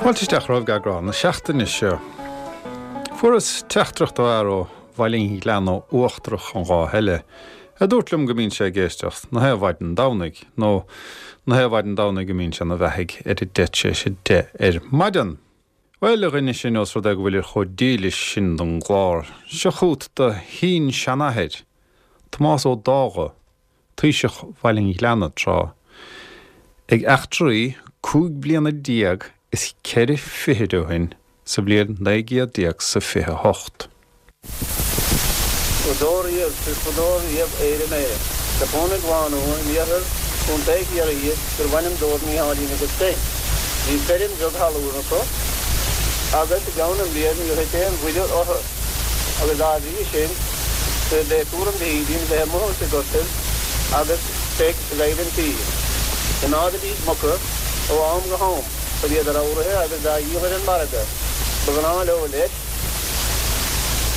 Fáilte isteach romhaibh go eagrán na seachtaine seo. Fuaireas teachtaireacht ó fhear ó Bhaile an Ghleanna Uachtarach an lá eile, a dúirt liom go mbíonn sé ag éisteacht na haon mhaidin Domhnaigh, nó na haon mhaidin Domhnaigh go mbíonn sé ina bheathaidh ar a deich tar éis a deich ar maidin. Bhuel, a dhuine sin, ós rud é go bhfuilir chomh dílis sin don gclár, seo chugat do shin-seanathair, Tomás Ó Dágha, taoiseach Bhaile an Ghleanna tráth, ag eachtraí 15 bliana is ceithre fichid ó shin sa bhliain naoi gcéad déag 's a 28. Fadó riamh is fadó riamh Éire mé. Do chónaigh lánúin in iarthar Chontae Chiarraí gurbh ainm dóibh Mícheáilín agus Peig. Bhí feirm bheag thalún acu agus i gceann na mblian níor thit aon bhuille orthu agus dá bhrí sin dob é cúram Mhíchílín bheith amuigh insa gortaibh agus Peig ag oighir an tí. Choimeádaidís muca ó am go ham chun iad a ramhraithe agus dá dhíol ar an margadh. Ba ghnáth leo leis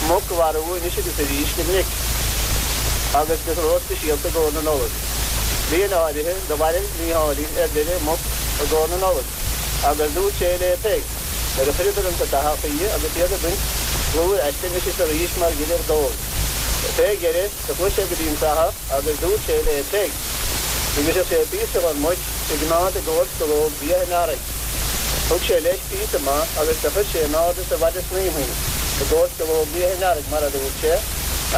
muc a mharú anois agus arís go minic agus go ró-speisialta i gcomhair na Nollag. Bliain áirithe do mharaigh Mícheáilín ar deireadh muc i gcomhair na Nollag agus dúirt sé le Peig nuair a chuireadar insa tathach í agus iad ag baint plúir aisti anois is arís mar ghile ordóg. Fé dheireadh do chuaigh sé go dtí an fathach agus dúirt sé le Peig go mbrisfeadh sé píosa dhon muic a gcoimeád i gcomhair scológ liath an earraigh. Thug sé leis píosa maith agus do chuir sé in airde sa mhaide snaidhmthe í, i gcomhair scológ liath an earraigh, mar a dúirt sé,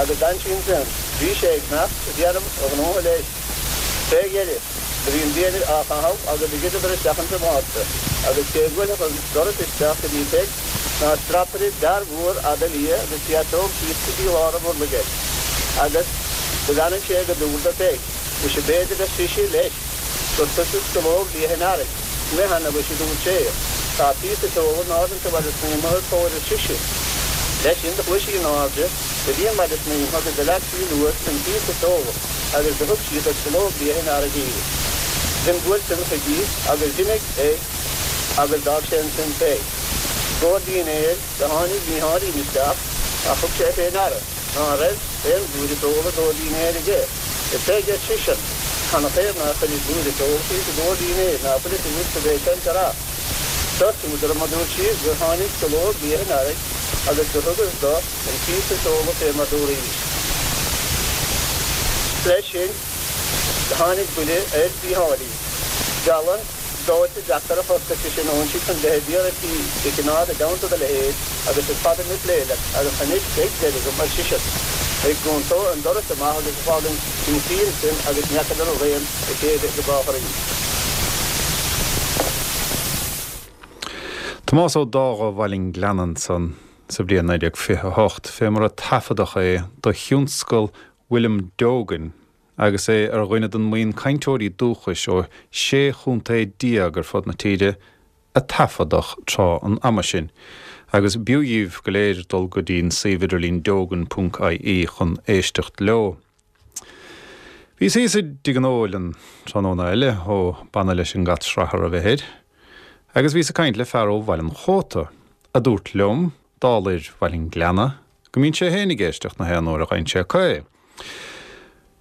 agus d'fhan sí ansin. Bhí sé ag imeacht ag déanamh a ghnótha leis. Fé dheireadh, do bhí an bia á chaitheamh agus do dhruideadar isteach insa mhárta, agus cé bhuailfeadh an doras isteach go dtí Peig ná strapaire d'fhear mhór fhada liath agus féasóg síos go dtí lár a bhurlaigh air, agus do bheannaigh sé go dúr do Pheig. Muise b'fhéidir, ar sise leis, gur tusa scológ liath an earraigh. Mheann, a mhuise, dúirt sé. Tá píosa feola in airde insa mhaide snaidhmthe id chomhair ar sise. Leis sin do chuaigh sí in airde go dtí an maide snaidhmthe agus do leag sí anuas an píosa feola agus do thug sí do scológ liath an earraigh í. D'imbuail san chuici agus d'imigh é agus d'fhág sé ansin Peig. I gcomhair dinnéir do tháinig Mícheáilín isteach ach thug sé fé ndeara ná raibh aon bhlúire feola i gcomhair dinnéir aige. A Pheig, ar seisean, canathaobh nár chuiris blúire feola síos i gcomhair dinnéir, ná fuil fhios agat cad é seo an rath? Seo súd orm, a dúirt sí, gur tháinig scológ liath an earraigh agus gur thugas do an píosa feola fé mar dúraís. Leis sin do tháinig buille ar Mhícheáilín. Diabhal dóite deacair a chosc, ar seisean, óinsigh chun bheith ag iarraidh tí do chimeád i dteannta do leithéid agus is fada mé ag plé leat agus anois beidh deireadh agam, ar seisean, ag dhúnadh an doras amach agus ag fágaint ina suí ansin agus ní fheacadar raon a chéile go brách arís. Tomás Ó Dágha Bhaile an Ghleanna ansan sa bhliain 1928, fé mar a taifeadadh é do thionscal William Dogan agus é ar dhuine den mbuíon cainteoirí dúchais ó 16 chontae ar fud na tíre a taifeadadh tráth an ama sin, agus b'fhiú dhíbh go léir dul go dtí'n suíomh idirlín dogan.ie chun éisteacht leo. Bhíos thíos i dTigh an Óil an tráthnóna eile ó b'annamh leis an gcat srathar a bheith air, agus bhíos ag caint le fear ó Bhaile an Chóta, a dúirt liom, dála fhir Bhaile an Ghleanna, go mbíonn sé féin ag éisteacht na haon uair a ghaibheann sé acu é.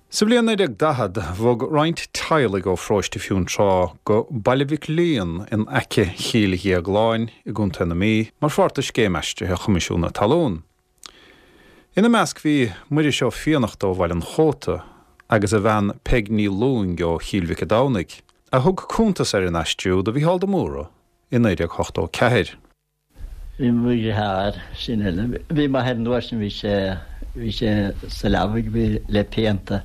Sa bhliain 1940, bhog roinnt teaghlaigh ó pharóiste Fionntrá go Baile Mhic Liam in aice Chill Dhéagláin i gContae na Mí mar pháirt de scéim aistrithe Choimisiún na Talún. Ina measc bhí Muiris Ó Fiannachta ó Bhaile an Chóta agus a bhean Peig Ní Lúing ó Chill Mhic a' Domhnaigh, a thug cuntas ar an aistriú do Mhícheál de Mórdha i 1984. Bhí mo dheartháir sin eile. Bhí m'athair an uair sin bhí sé bhí sé sa leabaidh bhí le pianta.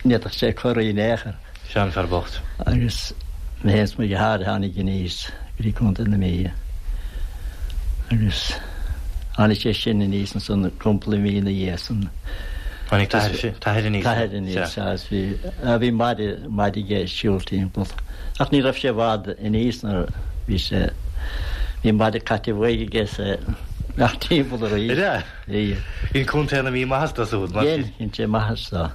Ní fhéadfadh sé corraí in aon chor. Seanfhear bocht. Agus mé féin is mo dheartháir a tháinig aníos go dtí Contae na Mí. Agus tháinig sé sin aníos ansan cúpla mí ina dhiaidh san. Tháinig t'athair aníos. T'athair aníos, sea. Agus bhí bhí maide maide aige ag siúl timpeall. Ach ní raibh sé i bhfad aníos nuair bhí sé, bhí maide caite uaidh aige is é ag timpeall arís. Ar ea? Bhí. Dhein Contae na Mí maitheas dó siúd, mar sin. Dhein, dhein sé maitheas dó.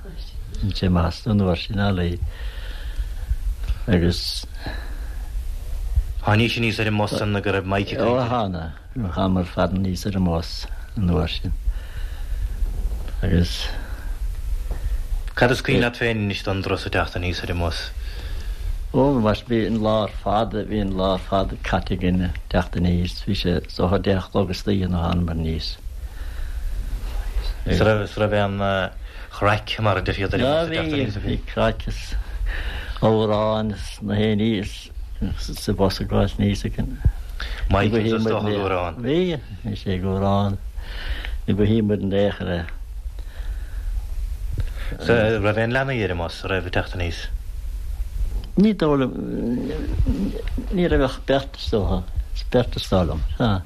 Dhein sé maitheas dó an uair sin, ar ndóigh. Agus. Tháinís aníos ar an mbus san go raibh Mike ag caint air. Ó, thána. Thánamar ar fad aníos ar an mbus an uair sin agus. Cad is cuimhin leat féin anois don dturas ag teacht aníos ar an mbus? Ó, mar bhí an lá ar fad, bhí an lá ar fad caite againn ag teacht aníos, bhí sé is dócha 10 a chlog istoíche nuair a thánamar aníos. Is raibh, is raibh aon chraic mar a deir siad ar an bhus ag teacht aníos a bhí? Bhí craic is amhráin is na haon ní sa bhus ag gabháilt aníos againn. Michael is dócha ag amhrán. Bhí, bhí sé ag amhrán. Ní ba shuim muid in aon chor é. Sea, raibh aon leanaí ar an mbus a raibh ag teacht aníos? Ní dóigh liom, ní raibh ach beirt is dócha, beirt is dóigh liom, sea.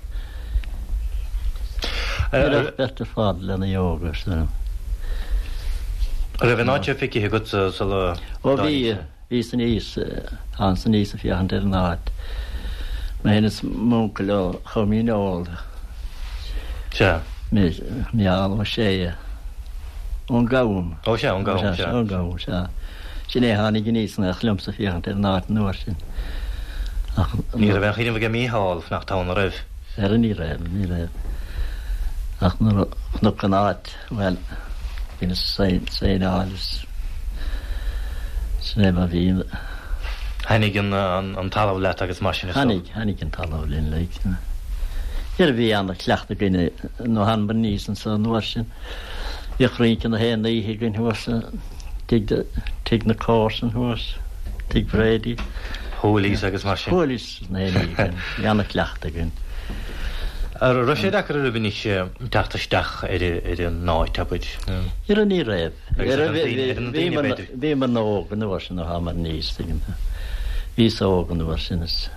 Ní raibh ach beirt ar fad, leanaí óga, is dóigh liom. Raibh an áit seo feicthe agatsa sula Ó bhí. Bhíos aníos, thángas aníos ag féachaint ar an áit. Mé féin is m'uncail ó Chom Dhíneol. Sea. Micheál Ó Sé. Ón gCam. Ó sea, ón gCam, sea. Ón gCam, sea. Sin é a tháinig aníos in éineacht liomsa ag féachaint ar an áit an uair sin. Ach. Ní raibh aon chuimhneamh aige Micheál fanacht ann, an raibh? Ara ní raibh, ní raibh. Ach nuair a chonac an áit. Bhuel, bhí na saonáil is sin é mar bhí. Tháinig an talamh leat agus mar sin is dócha. Tháinig, tháinig an talamh linn like. Dhera bhí ana-chleachtadh againn nuair a thánamar aníos anso an uair sin. Bhíodh rince na haon oíche againn thuas i dtigh, tigh na comharsan thuas, tigh Brady. Hoolies agus mar sin. Hoolies. Na haon oíche againn. Bhí ana-chleachtadh againn. An raibh sé deacair oraibh anois teacht isteach ar an áit, abair? Ara ní raibh. Agus ar na daoine, b'fhéidir? Bhíomar óg an uair sin nuair a thánamar aníos, tuigeann tú. Bhíos óg an uair sin is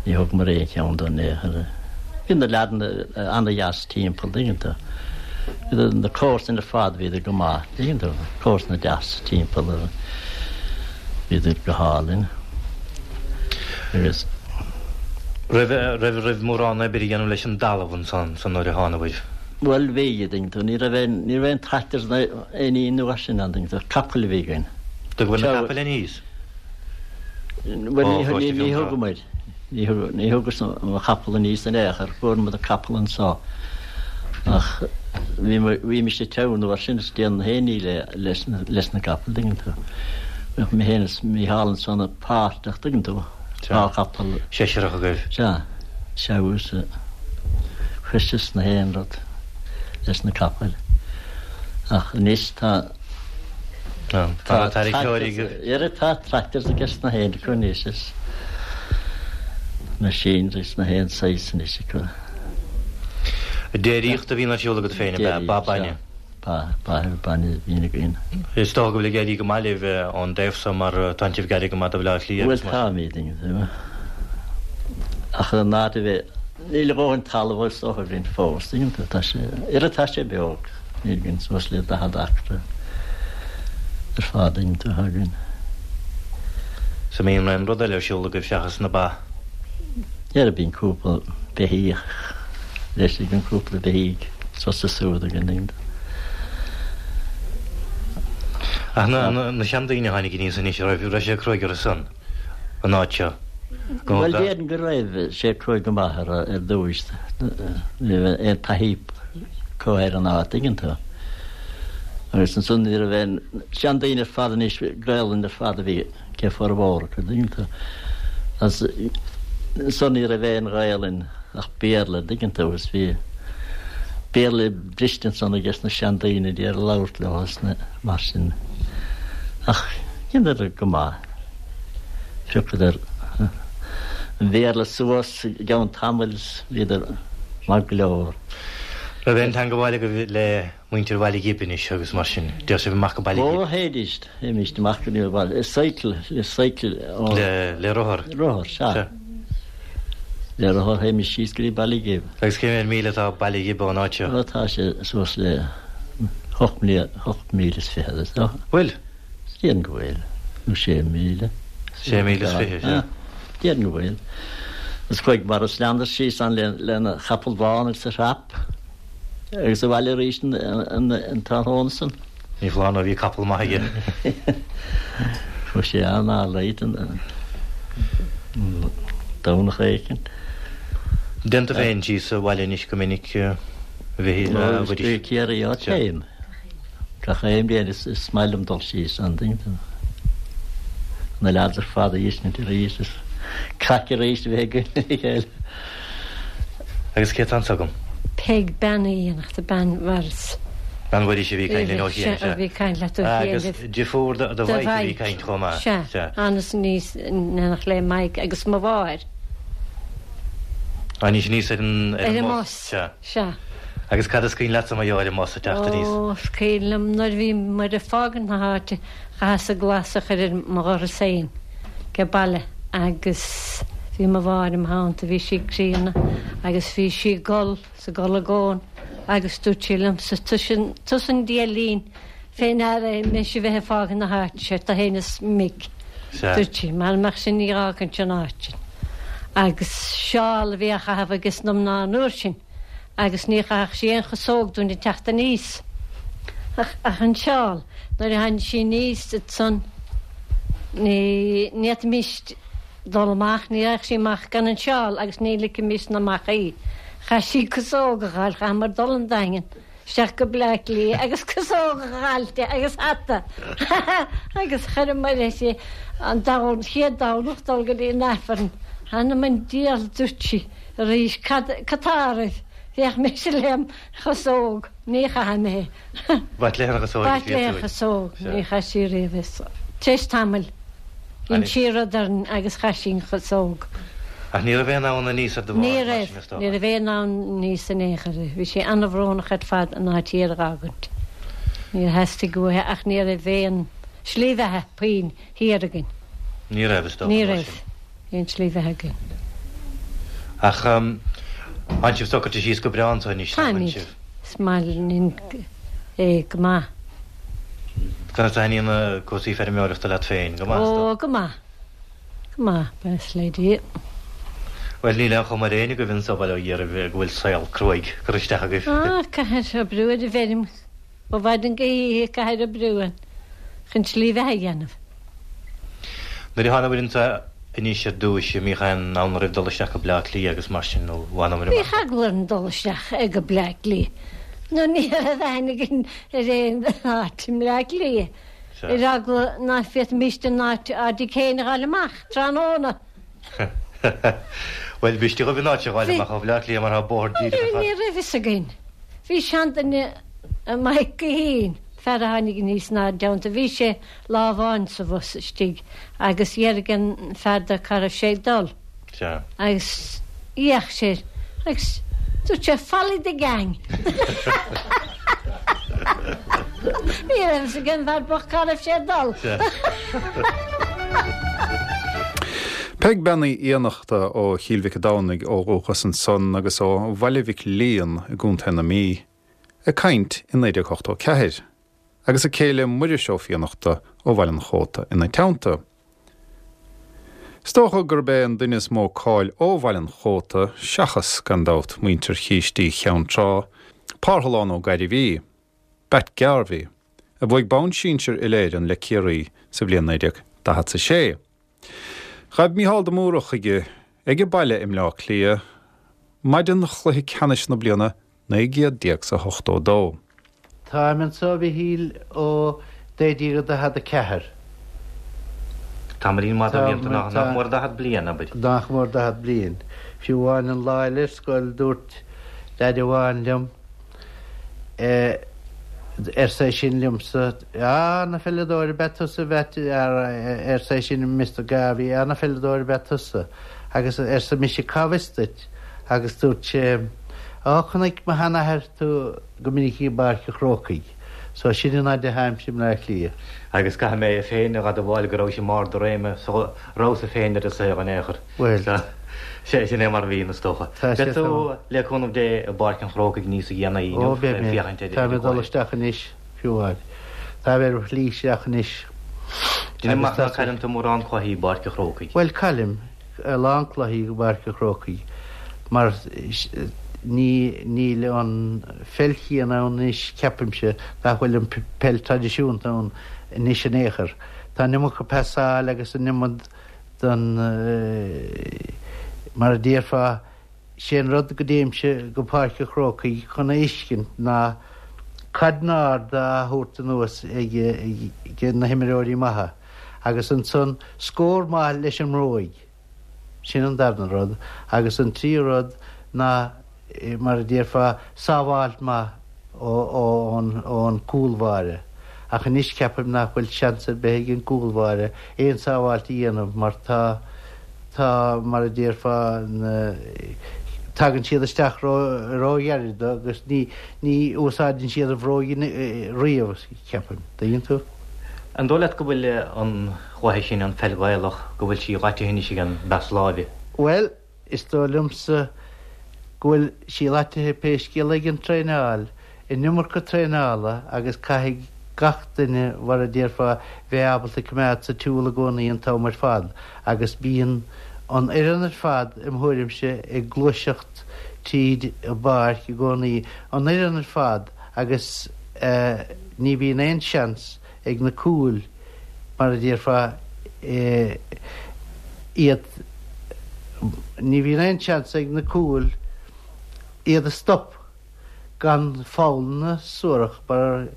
ní thugamar aon cheann dó in aon chor. Bhí na leaideanna ana-dheas timpeall, tuigeann tú. Bhí na comharsana ar fad, bhíodar go maith, tuigeann tú, comharsana deas timpeall. Bhíodar go hálainn agus. Raibh, raibh, raibh mórán oibre a dhéanamh leis an dtalamh ansan san nuair a thánabhair? Bhuel bhí, a dtuigeann tú, ní raibh aon, ní raibh aon tractors ná aon ní an uair sin ann, tuigeann tú, capaill a bhí againn. Dtugabhair na capaill aníos? Bhuel ní, ní, ní thugamair, ní thug, ní thugas mo chapall aníos in aon chor, fuair muid an capall anso ach bhí, bhí mise ag treabhadh an uair sin is déanamh aon ní le, leis na, leis na capaill, tuigeann tú. Bheadh mé féin is Mícheál ansan páirteach, tuigeann tú, dhá chapall. Seisearach agaibh. Sea, treabhadh is cois is na haon rud leis na capaill. Ach anois tá, tá tarracóirí agaibh. Dhera tá tractors ages na haon acu anois is machinery is na haon saghas anois acu. Déiríocht a bhíonn ar siúl agat féin, ab ea? Ba bainne? Ba, ba, bainne a bhíonn againn. Is dócha go bhfuil ag éirí go maith libh ón dtaobh so mar tánn sibh gar go maith do Bhaile Átha Cliath agus mar sin. Bhuel táimid, tuigeann tú. Ach an áit a bheith, níl a dhóthain talaimh is dócha againn fós, tuigeann tú, tá sé, oiread tá sé beag, níl againn suas le 40 acra ar fad, tuigeann tú, atá againn. So mbíonn aon rud eile ar siúl agaibh seachas na ba? Dhera bíonn cúpla beithíoch leis againn, cúpla beithígh suas is siúd againn. Ach na seandaoine a tháinig aníos anois, raibh raibh sé cruaidh orthu san, an áit seo? Bhuel déarfainn go raibh sé cruaidh go maith orthu ar dtúis, ní raibh aon taithí acu ar an áit, tuigeann tú. Agus ansan ní raibh aon seandaoine ar fad anois, Gaelainn ar fad a bhí. ag formhór acu, dtuigeann tú. Agus ansan ní raibh aon Ghaelainn ach Béarla, dtuigeann tú, agus bhí Béarla briste ansan ages na seandaoine d'iarraidh labhairt leo agus na mar sin. Ach dheineadar go maith. Phiocadar an Bhéarla suas i gceann tamaill is bhíodar maith go leor. Raibh aon teangabháil agaibh le muintir Bhaile Ghib anois agus mar sin? Dtéadh sibh amach go Baile Ghib? Ó, théidís. Théimíst amach go dtí an baile. Le cycle, le cycle. Le, le rothar? Rothar, sea. Le rothar théimíst síos go dtí Baile Ghib. Agus cé mhéad míle atá Baile Ghib ón áit seo? Ó, tá sé suas le 8 míle is fichead, is dócha. Bhfuil? Déarfainn go bhfuil. Nó sé míle. Sé míle is fiche, sea. Déarfainn go bhfuil. Is chuaigh Maurice Leander síos ann lena chapall bán agus a thrap. Agus abhaile arís an tráthnóna san. Ní foláir nó bhí capall maith aige. Chuaigh sé an-late an Domhnach éicint. Dtéann tú féin síos abhaile anois go minic, a Mhichíl, a Mhuiris? Ciarraí, á téim. Gach aon bhliain is maith liom dul síos ann, tuigeann tú. na leaids ar fad a fheiscint arís is craic arís a bheith againn le chéile. Agus cé atá anso agam? Peig Bean Uí Fhiannachta, bean Mhaurice. Bean Mhuiris a bhí ag caint linn ó chian, sea. A bhí ag caint leat ó chian. Agus deirfiúr do Mhaidhc a bhí ag caint chomh maith. Sea. Thánas aníos in éineacht le Maidhc agus mo mháthair. Tháinís aníos ar an Ar an mbus. Sea. Sea. Agus cad is cuimhin leatsa mar gheall ar an mbus ag teacht aníos? Ó, is cuimhin liom nuair a bhí muid ag fágaint na háite, chaitheas-sa glas a chur ar mo dhoras féin ag baile agus bhí mo mháthair im theannta, bhí sí críonna agus bhí sí ag gol 's ag gol i gcónaí agus dúirt sí liomsa, tusa an diailín fé ndeara é mise a bheith ag fágaint na háite seo, tú fhéin is Mick, dúirt sí, mara mbeadh sin ní dh'fhágfainnse an áit sin. Agus seál a bhí á chaitheamh ages na mná an uair sin agus ní chaithfeadh sí aon chasóg dúinn ag teacht aníos ach an seál. Nuair a tháinig sí aníos ansan ní fhéadfaimis dul amach, ní raghadh sí amach gan an seál agus ní ligfimis-ne amach í. Chaith sí casóg a dh'fháil, chaitheamar dul 'on Daingean. Isteach go Bleá Cliath agus casóg a dh'fháil di agus hata agus chuireamar uirthi an chéad Domhnach dul go dtí an Aifreann. Th'anam 'on diabhal dúirt sí arís cad tá oraibh? Bhéadh mise lem chasóg, ní chaithfidh mé. B'ait léi an chasóg. B'ait léi an chasóg, ní chaith sí riamh é. Tar éis tamaill. Dhein sí rud orainn agus chaith sí an chasóg. Ach ní raibh aon fhonn aníos ar do mháthair mar sin, is dócha? Ní raibh, ní raibh aon fhonn aníos in aon chor. Bhí sí an-bhrónach ar fad an áit thiar a dh'fhágaint. Níor theastaigh uaithi ach ní raibh aon slí bheatha puinn thiar againn. Ní raibh, is dócha, Ní raibh aon tslí bheatha againn. Ach tánn sibh socraithe síos go breá anso anois, nach bhfuil Táimid. sibh? Is maith linn é go maith. Conas a thaitníonn na cúrsaí feirmeoireachta leat féin? Go maith, is dócha? Ó, go maith. Go maith, buíochas le Dia. Bhuel, níl aon chuma ar éinne agaibh anso, bail ó Dhia oraibh, go bhfuil saol cruaidh curtha isteach agaibh. Á, caithfear oibriú ar an bhfeirm ó mhaidin go hoíche, caithfear oibriú ann chun slí bheatha a dhéanamh. Nuair a thánabhair anso anois ar dtúis, an mbíodh aon fhonn oraibh dul isteach go Bleá Cliath agus mar sin, nó bhfanabhair amach? Bhíodh eagla orainn dul isteach go Bleá Cliath, nó ní raibh aithne againn ar aon áit i mBleá Cliath, ar eagla ná féadfaimíst an áit ár dtigh féin a dh'fháil amach tráthnóna. Bhuel, b'fhuiriste dhaoibh an áit a dh'fháil amach ó Bhleá Cliath mar tá bóthar díreach ar fad. Ní raibh fhios againn. Bhí seanduine, Maidhc Guithín, fear a tháinig aníos inár dteannta, bhí sé lá amháin sa bhus istigh agus d'fhiafraigh an fear de cá raibh sé ag dul. Sea. Agus d'fhéach sé air agus dúirt sé Follow the gang. Ní raibh fhios ag an bhfear bocht cá raibh sé ag dul. Sea. Peig Bean Uí Fhiannachta ó Chill Mhic a' Domhnaigh ó dhúchas ansan agus ó Bhaile Mhic Liam i gContae na Mí ag caint i 1984. agus a céile Muiris Ó Fiannachta ó Bhaile an Chóta ina teannta. Is dócha gurb é an duine is mó cáil ó Bhaile an Chóta, seachas, gan dabht, muintir Chístí Cheann Trá, Parthalán Ó Gairbhí, Batt Garvey, a bhuaigh bonn sinsir Uile-Éireann le Ciarraí sa bhliain 1946. Ghaibh Mícheál de Mórdha chuige ag a baile i mBleá Cliath maidin chluiche ceannais na bliana 1982. Táim anso, a Mhichíl, ó 1944. Tamaillín maith de bhlianta, nach mór 40 bliain, abair. Nach mór 40 bliain. Fiú amháin an lá eile ar scoil dúirt leaid amháin liom, arsa é sin liomsa, Á, ana pheileadóir ab ea tusa, a Mheait, arsa é sin, Mister Garvey, ana pheileadóir ab ea tusa. Agus arsa mise, Cá bhfios duit? Agus dúirt sé, Á, chonaic mo sheanathair tú go minic i bPáirc an Chrócaigh. So sin an fhaid a tháimse i mBleá Cliath. Agus caithfidh mé féin a dh'admháil go rabhais i mbarr do réime sula rabhas-sa féin ar an saol in aon chor. Bhuel. So, sin é mar a bhíonn, is dócha. Tá sé Beidh tú, le cúnamh Dé, i bPáirc an Chrócaigh níos déanaí inniu, Ó, beidh mé. féachaint ar Táim ag dul isteach anois, fiú amháin. Táim ar mo shlí isteach anois. Déanaim amach ná cailleann tú mórán cluichí i bPáirc an Chrócaigh. Bhuel, caillim. a lán cluichí i bPáirc an Chrócaigh mar ní níl an pheil chéanna ann anois ceapaimse nach bhfuil an peil traidisiúnta ann anois in aon chor. Tá an iomarca pasáil agus an iomad den mar a déarfá sé an rud go dtéimse go Páirc an Chrócaigh chun a fheiscint ná cairdín ard á thabhairt anuas ag na himreoirí maithe. Agus ansan scór maith leis an mbróig. Sin an darna rud. Agus an tríú rud ná, mar a déarfá, sábháilt maith ón gcúlbháire. Ach anois ceapaim nach bhfuil seans ar bith ag an gcúlbháire aon sábháilt a dhéanamh mar tá, tá, mar a déarfá, na, tagann siad isteach ró-ghairid dó agus ní, ní úsáideann siad an bhróig riamh, ceapaim. Dtuigeann tú? An dóigh leat go bhfuil an chluiche sin, an pheil Ghaelach, go bhfuil sí laitithe anois ag an bpas láimhe? Bhuel, is dóigh liomsa go bhfuil sí laitithe pé scéal é ag an traenáil, an iomarca traenála agus caithfidh gach duine, mar a déarfá, bheith ábalta coimeád sa tsiúl i gcónaí an t-am ar fad agus bíonn an fhoireann ar fad, im thuairimse, ag gluaiseacht tríd an bpáirc i gcónaí, an fhoireann ar fad agus ní bhíonn aon seans ag na cúil, mar a déarfá, iad, ní bhíonn aon seans ag na cúil iad a stop gan foghlanna suarach mar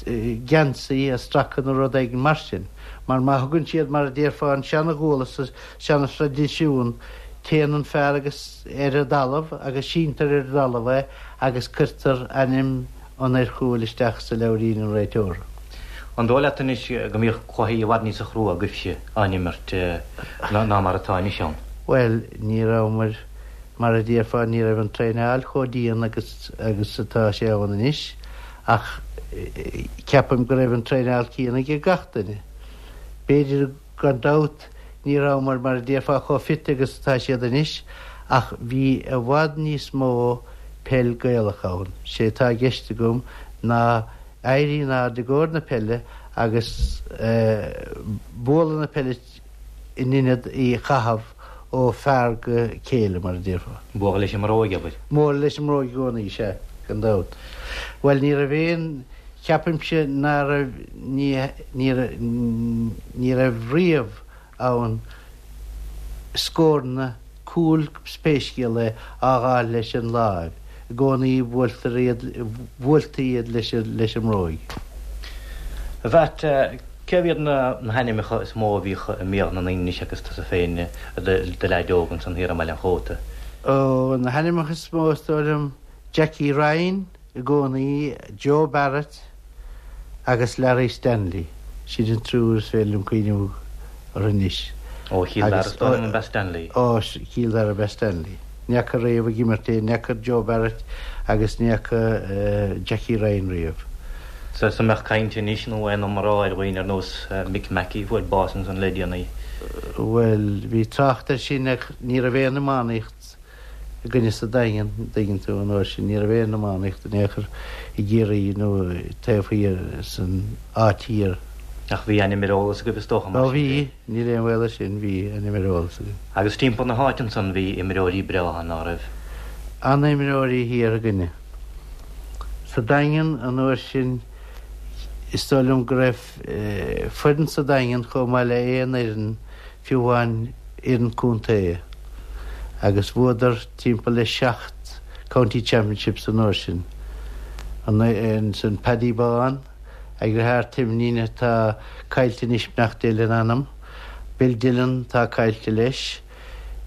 geansaí a stracadh nó rud éigin mar sin. Mar má thugann siad, mar a déarfá, an seana-ghuala sa seana-thraidisiún, téann an fear agus ar an dtalamh agus síntear ar an dtalamh é agus cuirtear ainm an fhir chúil isteach sa leabhairín an réiteora. An dóigh leat anois go mbíodh cluichí i bhfad níosa chrua agaibhse á n-imirt ná mar atá anois ann? Bhuel, ní rabhamar, mar a déarfá, ní raibh an traenáil chomh dian agus agus atá sé ann anois ach ceapaim go raibh an traenáil céanna ag gach duine. B'fhéidir Gan dabht, ní rabhamar, mar a déarfá, chomh fit agus atá siad anois, ach bhí i bhfad níos mó peil Gaelach ann. Sé atá i gceist agam ná éirí in airde i gcomhair na peile agus bualadh na peile in ionad í a chaitheamh ó fear go céile, mar a déarfá. Bualadh leis an mbróig, abair. Bualadh leis an mbróig i gcónaí, sea, gan dabht. Bhuel, ní raibh aon. Ceapaimse ná raibh, ní, ní, ní raibh riamh ann scóranna cúil pé scéal é á dh'fháil leis an láimh, i gcónaí buailtear iad, bhuailtí iad leis an, leis an mbróig. A Mheait, cé hiad na hainmneacha is mó a bhíodh i mbéal na ndaoine anois agus tusa féin i do leaid óg ansan thiar i mBaile an Chóta? Ó, na hainmneacha is mó is dóigh liom, Jackie Ryan, i gcónaí, Joe Barrett agus Larry Stanley, sin an triúr is féidir liom cuimhneamh orthu anois. Ó Chill Dara is dóigh liom ab ea Stanley. Ó Chill Dara ab ea Stanley. Ní fhaca riamh ag imirt é, ní fhaca Joe Barrett agus ní fhaca Jackie Ryan riamh. Sea, an mbeadh caint anois nó aon iomrá ar dhaoine ar nós Mick Mackey a fuair bás ansan le déanaí? Bhuel, bhí trácht air sin ach ní raibh aon iománaíocht againne sa Daingean, an dtuigeann tú, an uair sin. Ní raibh aon iománaíocht in aon chor i gCiarraí nó taobh thiar san áit thiar. Ach bhí ainm ar eolas agaibh is dócha mar sin de? Ó bhí, níl aon bhaol air sin, bhí ainm ar eolas againn. Agus timpeall na háite ansan bhí imreoirí breátha, ná raibh? An-imreoirí thiar againne. Sa Daingean an uair sin is dóigh liom go raibh foireann sa Daingean chomh maith le aon fhoireann fiú amháin fhoireann contae agus bhuadar timpeall le 7 County Championships an uair sin. Ansan Paddy Bán, a dheartháir Timnin atá caillte anois beannacht Dé lena anam, Bill Dillon atá caillte leis,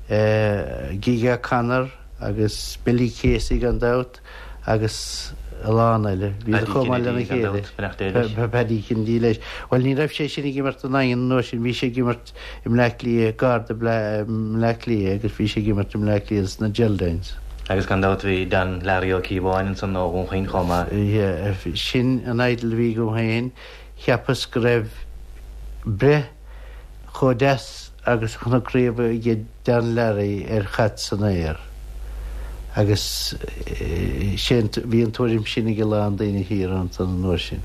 Gige O'Connor agus Billy Casey gan dabht. agus a lán eile. Bhíodar chomh maith lena chéile. Paddy Kennedy leis. Bhuel, ní raibh sé sin ag imirt don Daingean an uair sin, bhí sé ag imirt i mBleá Cliath, gar do Bhleá Cliath agus bhí sé ag imirt i mBleá Cliath sna Geraldines. Agus gan dabht bhí Dan Larry Ó Cíobháin ansan ó Dhún Chaoin chomh maith. Yeah, sin an idol a bhí agam féin. Cheapas go raibh breith chomh deas agus a chonac riamh aige Dan Larry ar chaid san aer agus sé bhí an tuairim sin ag a lán daoine thiar ansan an uair sin.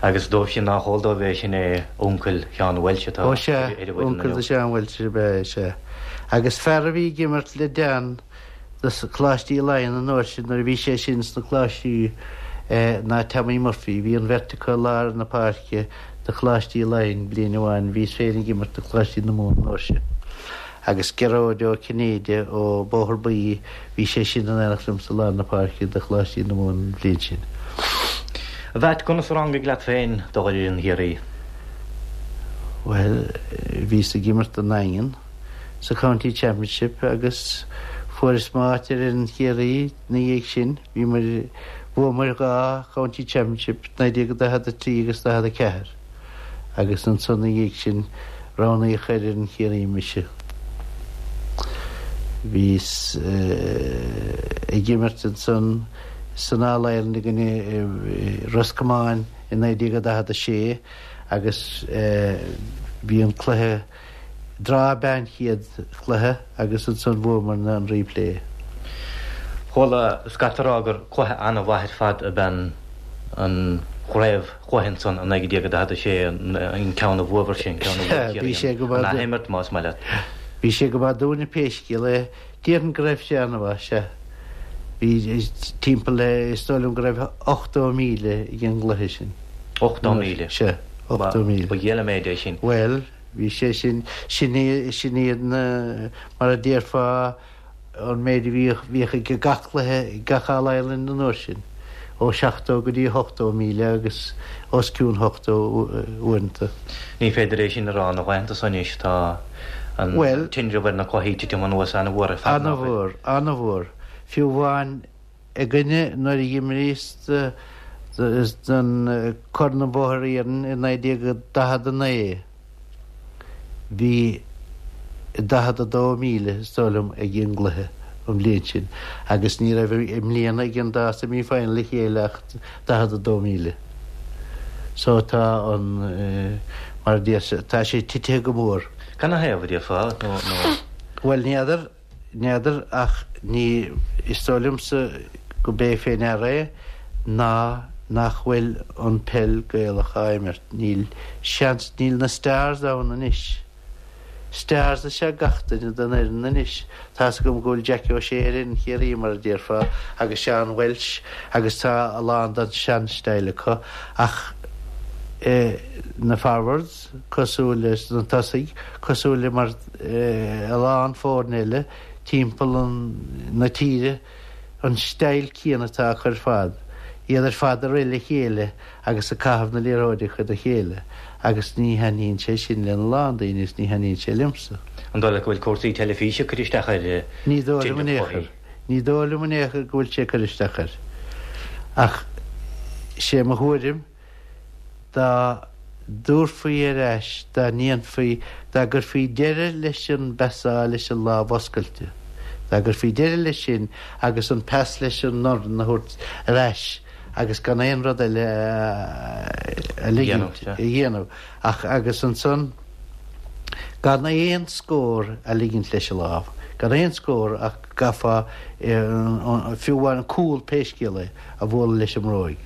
Agus dóibh sin nách eol dóibh é, sin é uncail Sheán Walsh atá Ó sea, ar an bhfoireann uncail do Sheán Walsh ab ea é, sea. Agus fear a bhí ag imirt le Dan do Choláistí Laighean an uair sin nuair a bhí sé sin sna Coláistí ná Tommy Murphy. Bhí an bheirt acu i lár na páirce do Choláistí Laighean bliain amháin. Bhíos féin ag imirt do Choláistí na Mumhan an uair sin. Agus Gearóid Ó Cinnéide ó Bóthar Buí, bhí sé sin in éineacht liom sa lár na páirce do Choláistí na Mumhan an bhliain sin. A Mheait, conas a rangaigh leat féin dul ar fhoireann Chiarraí? Bhuel, bhíos ag imirt don nDaingean sa County Championship agus fuaireas m'áit ar fhoireann Chiarraí ina dhiaidh sin. Bhíomar, bhuamar 2 County Championship, 1943 agus 44, agus ansan ina dhiaidh sin roghnaíodh ar fhoireann Chiarraí mise. Bhíos ag imirt ansan san All Ireland i gcoinne Ros Comáin i 1946 agus bhí an cluiche draw ab ea an chéad chluiche agus ansan bhuamarna an replay. Chuala scata ag rá gur cluiche an-mhaith ar fad ab ea an chraobh chluiche ansan i 1946, an ceann a bhuabhair sin, ceann a bhuaigh Ciarraí, an athimirt más maith leat. Bhí sé go maith dúinne pé scéal é. Déarfainn go raibh sé an-mhaith, sea. Bhí timpeall le, is dóigh liom go raibh 80,000 ag an gcluiche sin. 80,000? Sea, 80,000. Ba dhiail an méid é sin. Bhuel, bhí sé sin, sin sin iad na, mar a déarfá, an méid a bhíodh, bhíodh ag gach cluiche, gach All Ireland an uair sin, ó 70 go dtí 80,000 agus os cionn 80 uaireanta. Ní féidir é sin a rá na laethanta so anois, tá an tinreamh ar na cluichí ag titim anuas an-mhór ar fad, nach bhfuil? An-mhór, an-mhór. Fiú amháin againne nuair a dh'imríos don Corn an Bhóthair Iarainn i 1949, bhí 42,000, is dóigh liom, ag an gcluiche an bhliain sin agus ní raibh i mbliana ag an dá semi final le chéile ach 42,000. So tá an, mar a déarfá, tá sé titithe go mór. Canathaobh, a déarfá, nó? Bhuel, n'fheadar, n'fheadar ach ní, is dóigh liomsa go b'é fé ndeara é ná nach bhfuil an peil Gaelach á imirt. Níl seans, níl na stars ann anois. Stars is ea gach duine den fhoireann anois. Tá's agam go bhfuil Jackie O'Shea ar fhoireann Chiarraí, mar a déarfá, agus Seán Walsh agus tá a lán den sean-style acu ach na forwards, cosúil leis na tosaigh, cosúil le mar a lán foirne eile timpeall na tíre, an style céanna atá acu ar fad, iad ar fad ag rith le chéile agus ag caitheamh na liathróide chuig a chéile agus ní thaitníonn sé sin lena lán daoine is ní thaitníonn sé liomsa. An dóigh leat go bhfuil cúrsaí teilifíse ag cur isteach ar Ní dóigh liom in aon chor. Ní dóigh liom in aon chor go bhfuil sé ag cur isteach air. Ach sé mo thuairim dá dtabharfaí ar ais, dá ndéanfaí, dá gcuirfí deireadh leis an bpasáil leis an lámh oscailte, dá gcuirfí deireadh leis sin agus an pas leis an ndorn a thabhairt ar ais agus gan aon rud eile a ligint a dhéanamh ach agus ansan gan aon scór a ligint leis an lámh, gan aon scór ach gcaithfeá fiú amháin an cúl pé scéal é. a bhualadh leis an mbróig,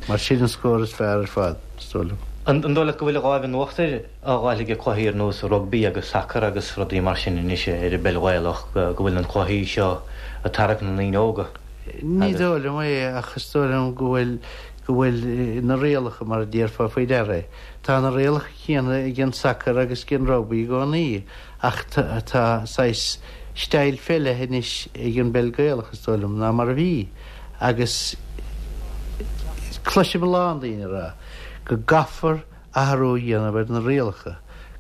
mar sin an scór is fearr ar fad, is dóigh liom. An dóigh leat go bhfuil an láimh in uachtar á fháil ag cluichí ar nós rugbaí agus sacar agus rudaí mar sin anois ar an bpeil Ghaelach, go bhfuil na cluichí seo ag tarrac na ndaoine óga? Ní dóigh liom é ach is dóigh liom go bhfuil go bhfuil na rialacha mar a déarfá faoi deara é. Tá na rialacha céanna ag an sacar agus ag an rugbaí i gcónaí ach tá saghas style fé leith anois ag an bpeil Gaelach is dóigh liom ná mar a bhí. Agus cloisim a lán daoine ag rá go gcaithfear athrú a dhéanamh ar na rialacha,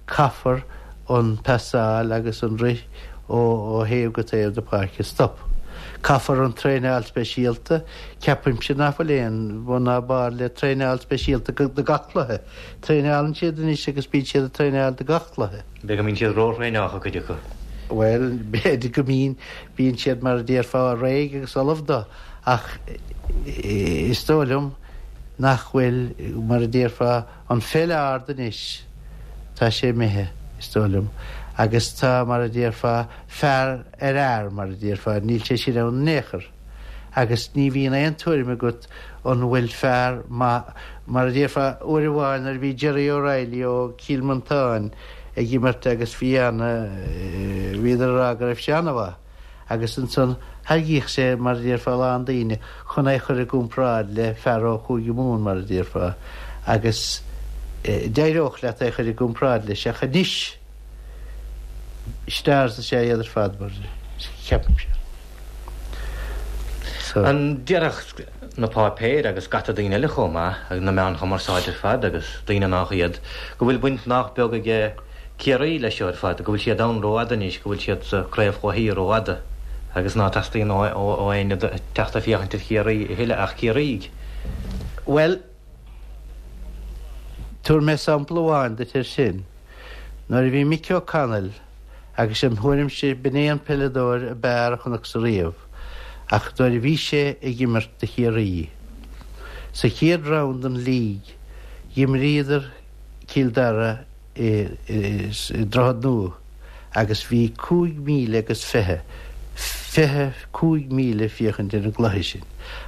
caithfear an pasáil agus an rith ó thaobh go taobh na páirce a stop. Caithfear an traenáil speisialta, ceapaimse nach bhfuil aon bhun ná barr le traenáil speisialta do gach cluiche. Traenálann siad anois agus bíonn siad ag traenáil do gach cluiche. B'fhéidir go mbíonn siad ró-thraenáilte, cuid acu. Bhuel, b'fhéidir go mbíonn. Bíonn siad, mar a déarfá, réidh agus ullamh dó, ach is dóigh liom nach bhfuil, mar a déarfá, an pheil ard anois, tá sé imithe, is dóigh liom, agus tá, mar a déarfá, fear ar fhear, mar a déarfá, níl sé sin ann in aon chor. Agus ní bhíonn aon tuairim agat an bhfuil fear maith, mar a déarfá, uair amháin nuair a bhí Gerry O'Reilly ó Chill Mhantáin, ag imirt agus bhí ana, bhíodar ag rá go raibh sé ana-mhaith agus ansan thairgíodh sé, mar a déarfá, a lán daoine chun é chur i gcomparáid le fear ó Chúige Mumhan, mar a déarfá, agus d'éireodh leat é chur i gcomparáid leis ach anois stars is ea iad ar fad, mar ceapaimse. So. An déarfadh. na páipéir agus scata daoine eile chomh maith, agus na meáin chumarsáide ar fad agus daoine nách iad, go bhfuil baint nách beag aige Ciarraí leis seo ar fad, go bhfuil siad ann rófhada anois, go bhfuil siad sa chraobh chluichí rófhada agus ná teastaíonn ó éinne teacht ag féachaint ar Chiarraí a thuilleadh ach Ciarraígh. Bhuel, tabharfaidh mé sampla amháin duit air sin. Nuair a bhí Mickey O'Connell, agus im thuairimse b'in é an peileadóir ab fhearr a chonacsa riamh, ach nuair a bhí sé ag imirt do Chiarraí, sa chéad round den League, dh'imríodar Cill Dara i Droichead Nua agus bhí 5,000 agus 20, 25,000 ag féachaint ar an gcluiche sin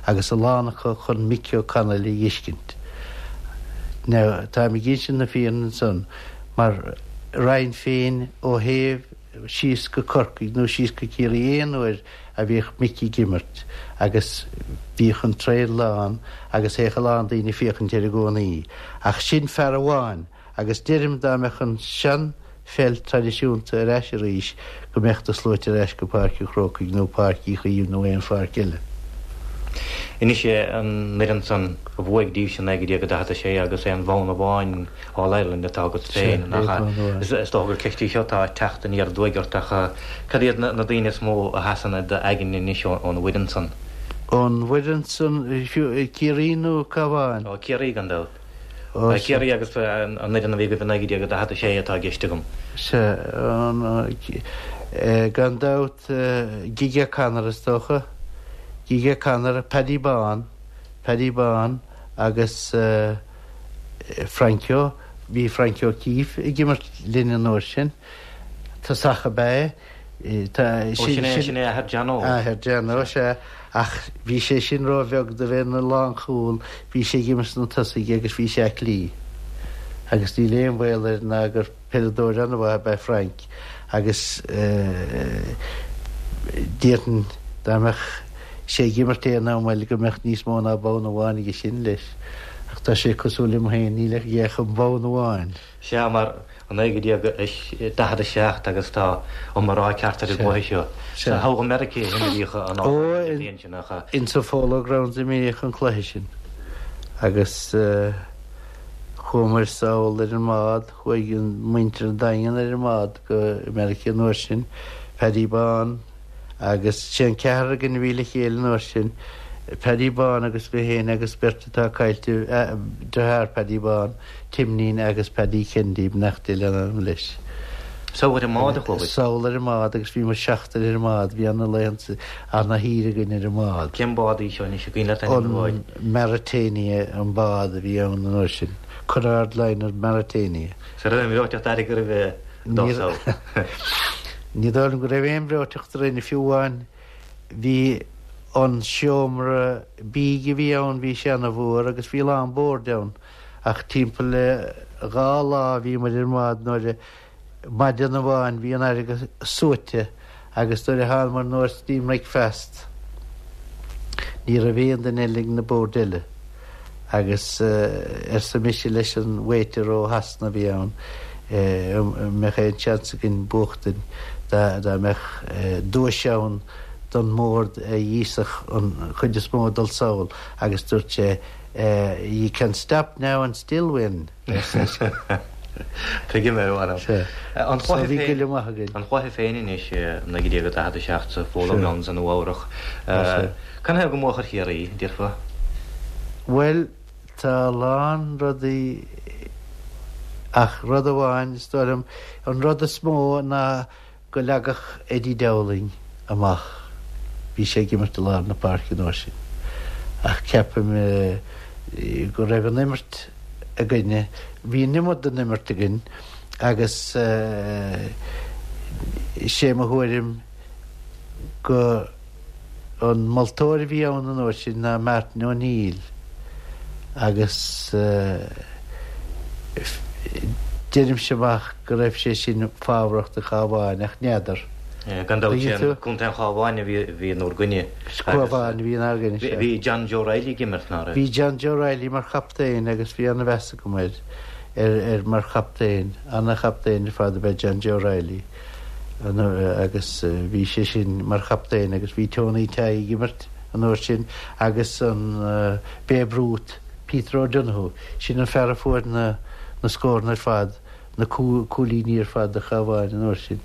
agus a lán acu chun Mickey O'Connell a dh'fheiscint. Now, táim ag insint na fírinne ansan mar raghainn féin ó thaobh síos go Corcaigh nó síos go Ciarraí aon uair a bhíodh Mickey ag imirt agus bhíodh an traein lán agus théadh a lán daoine ag féachaint air i gcónaí. Ach sin fear amháin agus deirim dá mbeadh an sean pheil traidisiúnta ar ais arís go mbeadh na sluaite ar ais go Páirc an Chrócaigh nó Páirc Uí Chaoimh nó aon pháirc eile. Anois an fhoireann san a bhuaigh daoibhse 1946 agus aon bhonn amháin All Ireland atá agat féin, nach ea? Is dócha gur ceist í seo atá ag teacht aniar aduaidh ort ach cad iad na daoine is mó a sheasann i d'aigne anois ón bhfoireann san? Ón bhfoireann san, Ciarraí nó Cabhán? Ó, Ciarraí gan dabht. Ciarraí agus an fhoireann a bhí agaibh i 1946 atá i gceist agam. Sea, gan dabht Gige O'Connor is dócha, Gige O'Connor, Paddy Bán, Paddy Bán agus Frankie, bhí Frankie O'Keeffe ag imirt linn an uair sin, tosach ab ea é. Ó, sin é, sin é athair Johnno. Athair Johnno, sea, ach bhí sé sin róbheag do bheith ina lánchúl, bhí sé ag imirt sna tosaigh agus bhí sé aclaí. Agus níl aon bhaol air ná gur Peileadóir an-mhaith ab ea Frank agus déarfainn dá mbeadh sé ag imirt aon am eile go mbeadh níos mó ná bonn amháin aige sin leis. Ach tá sé cosúil liom féin, níl aige ach an bonn amháin. Sea, mar 1947 agus tá iomrá ceart ar an gcluiche seo. Sa togha Meiriceá a imríodh an bhliain sin, nach ea? Insa Polo Grounds a imríodh an cluiche sin agus chuamair sall ar an mbád. Chuaigh muintir an Daingin ar an mbád go Meiriceá an uair sin, Paddy Bán agus sé an ceathrar againn a bhí le chéile an uair sin, Paddy Bán agus mé féin agus beirt atá caillte, deartháir Paddy Bán, Timnín agus Paddy Kennedy, beannacht Dé lena anam leis. Sall ar an mbád a chuabhair? Sall ar an mbád agus bhí muid seachtar ar an mbád, bhí ana laethanta, ana shaoire againn ar an mbád. Cén bád í seo anois, an cuimhin leat ainm an bháid? An Mauretania an bád a bhí ann an uair sin. Cunard Liner Mauretania. An raibh aon bhreoiteacht airgid roimhe dul sall. Ní dóigh liom go raibh aon bhreoiteacht orainn, fiú amháin bhí an seomra bídh a bhí ann, bhí sé ana-mhór agus bhí a lán boird ann ach timpeall le dhá lá a bhí muid ar an mbád nuair a Maidin amháin bhí an fharraige suaite agus nuair a thánamair anuas dtí an mbricfeast ní raibh aon duine eile ag na boird eile agus arsa mise leis an waiter ó Shasana a bhí ann an mbeadh aon seans againn buachtaint dá mbeadh duais ann don mbord a dh'íosfadh an chuid is mó ag dul sall agus dúirt sé you can stop now and still win. Tuigim é, a mh'anam. An cluiche féin, an cluiche féin anois i 1947 sa Polo Grounds i Nua Eabhrach. Canathaobh go mbuafadh ar Chiarraí, déarfá? Bhuel, tá a lán rudaí ach rud amháin, is dóigh liom, an rud is mó ná go leagfadh Eddie Dowling amach. Bhí sé ag imirt i lár na páirce an uair sin. Ach ceapaim go raibh an imirt againne, bhí an iomad den imirt againn agus sé mo thuairim go An moltóir a bhí ann an uair sin ná Martin O'Neill agus deirimse amach go raibh sé sin fabhrach do Chabhán ach n'fheadar. Gan dabht sé an Contae an Chabháin a bhí in bhur gcoinne. Cabhán a bhí inár gcoinne, sea. Bhí John Joe Reilly ag imirt, ná raibh? Bhí John Joe Reilly mar chaptaen agus bhí ana-mheas agam air ar mar chaptaen. Ana-chaptaen ar fad ab ea John Joe Reilly. agus bhí sé sin mar chaptaen agus bhí Tony Tighe ag imirt an uair sin agus an Babe Ruth, Peter O'Donoghue, sin an fear a fuair na na scóranna ar fad, na cúilíní ar fad do Chabhán an uair sin.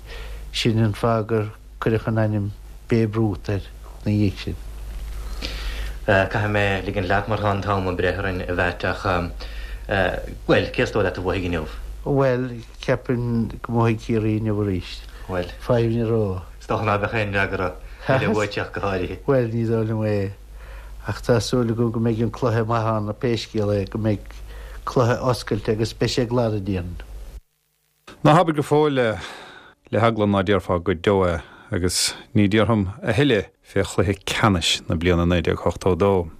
Sin an fáth gur cuireadh an ainm Babe Ruth air ina dhiaidh sin. Caithfidh mé ligint leat mar tá an t-am ag breith orainn a Mheait ach, bhuel, cé is dóigh leat a bhuafaidh inniu? Bhuel, ceapaim go mbuafaidh Ciarraí inniu arís. Bhuel. Fadhb ní raibh. Is dócha ná beadh aon fhreagra eile uait ach go háirithe. Bhuel, ní dóigh liom é. Ach tá súil agam go mbeidh an cluiche maith ann, pé scéal é, go mbeidh cluiche oscailte agus beidh sé glan a déarfainn. Ná habair go fóill é, le heagla ná déarfá go deo é, agus ní déarfam a thuilleadh fé chluiche ceannais na bliana 1982.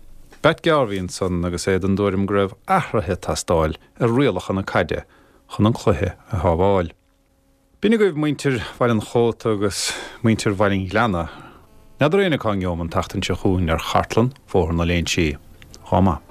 Batt Garvey ansan agus é den dtuairim go raibh athruithe ag teastáil ar rialacha na caide chun an cluiche a shábháil. B'in agaibh muintir Bhaile an Chóta agus muintir Bhaile an Ghleanna. N'fheadar éinne cá ngeobham an tseachtain seo chugainn ar chartlann Bhóthar na Léinsí. Dhá maith.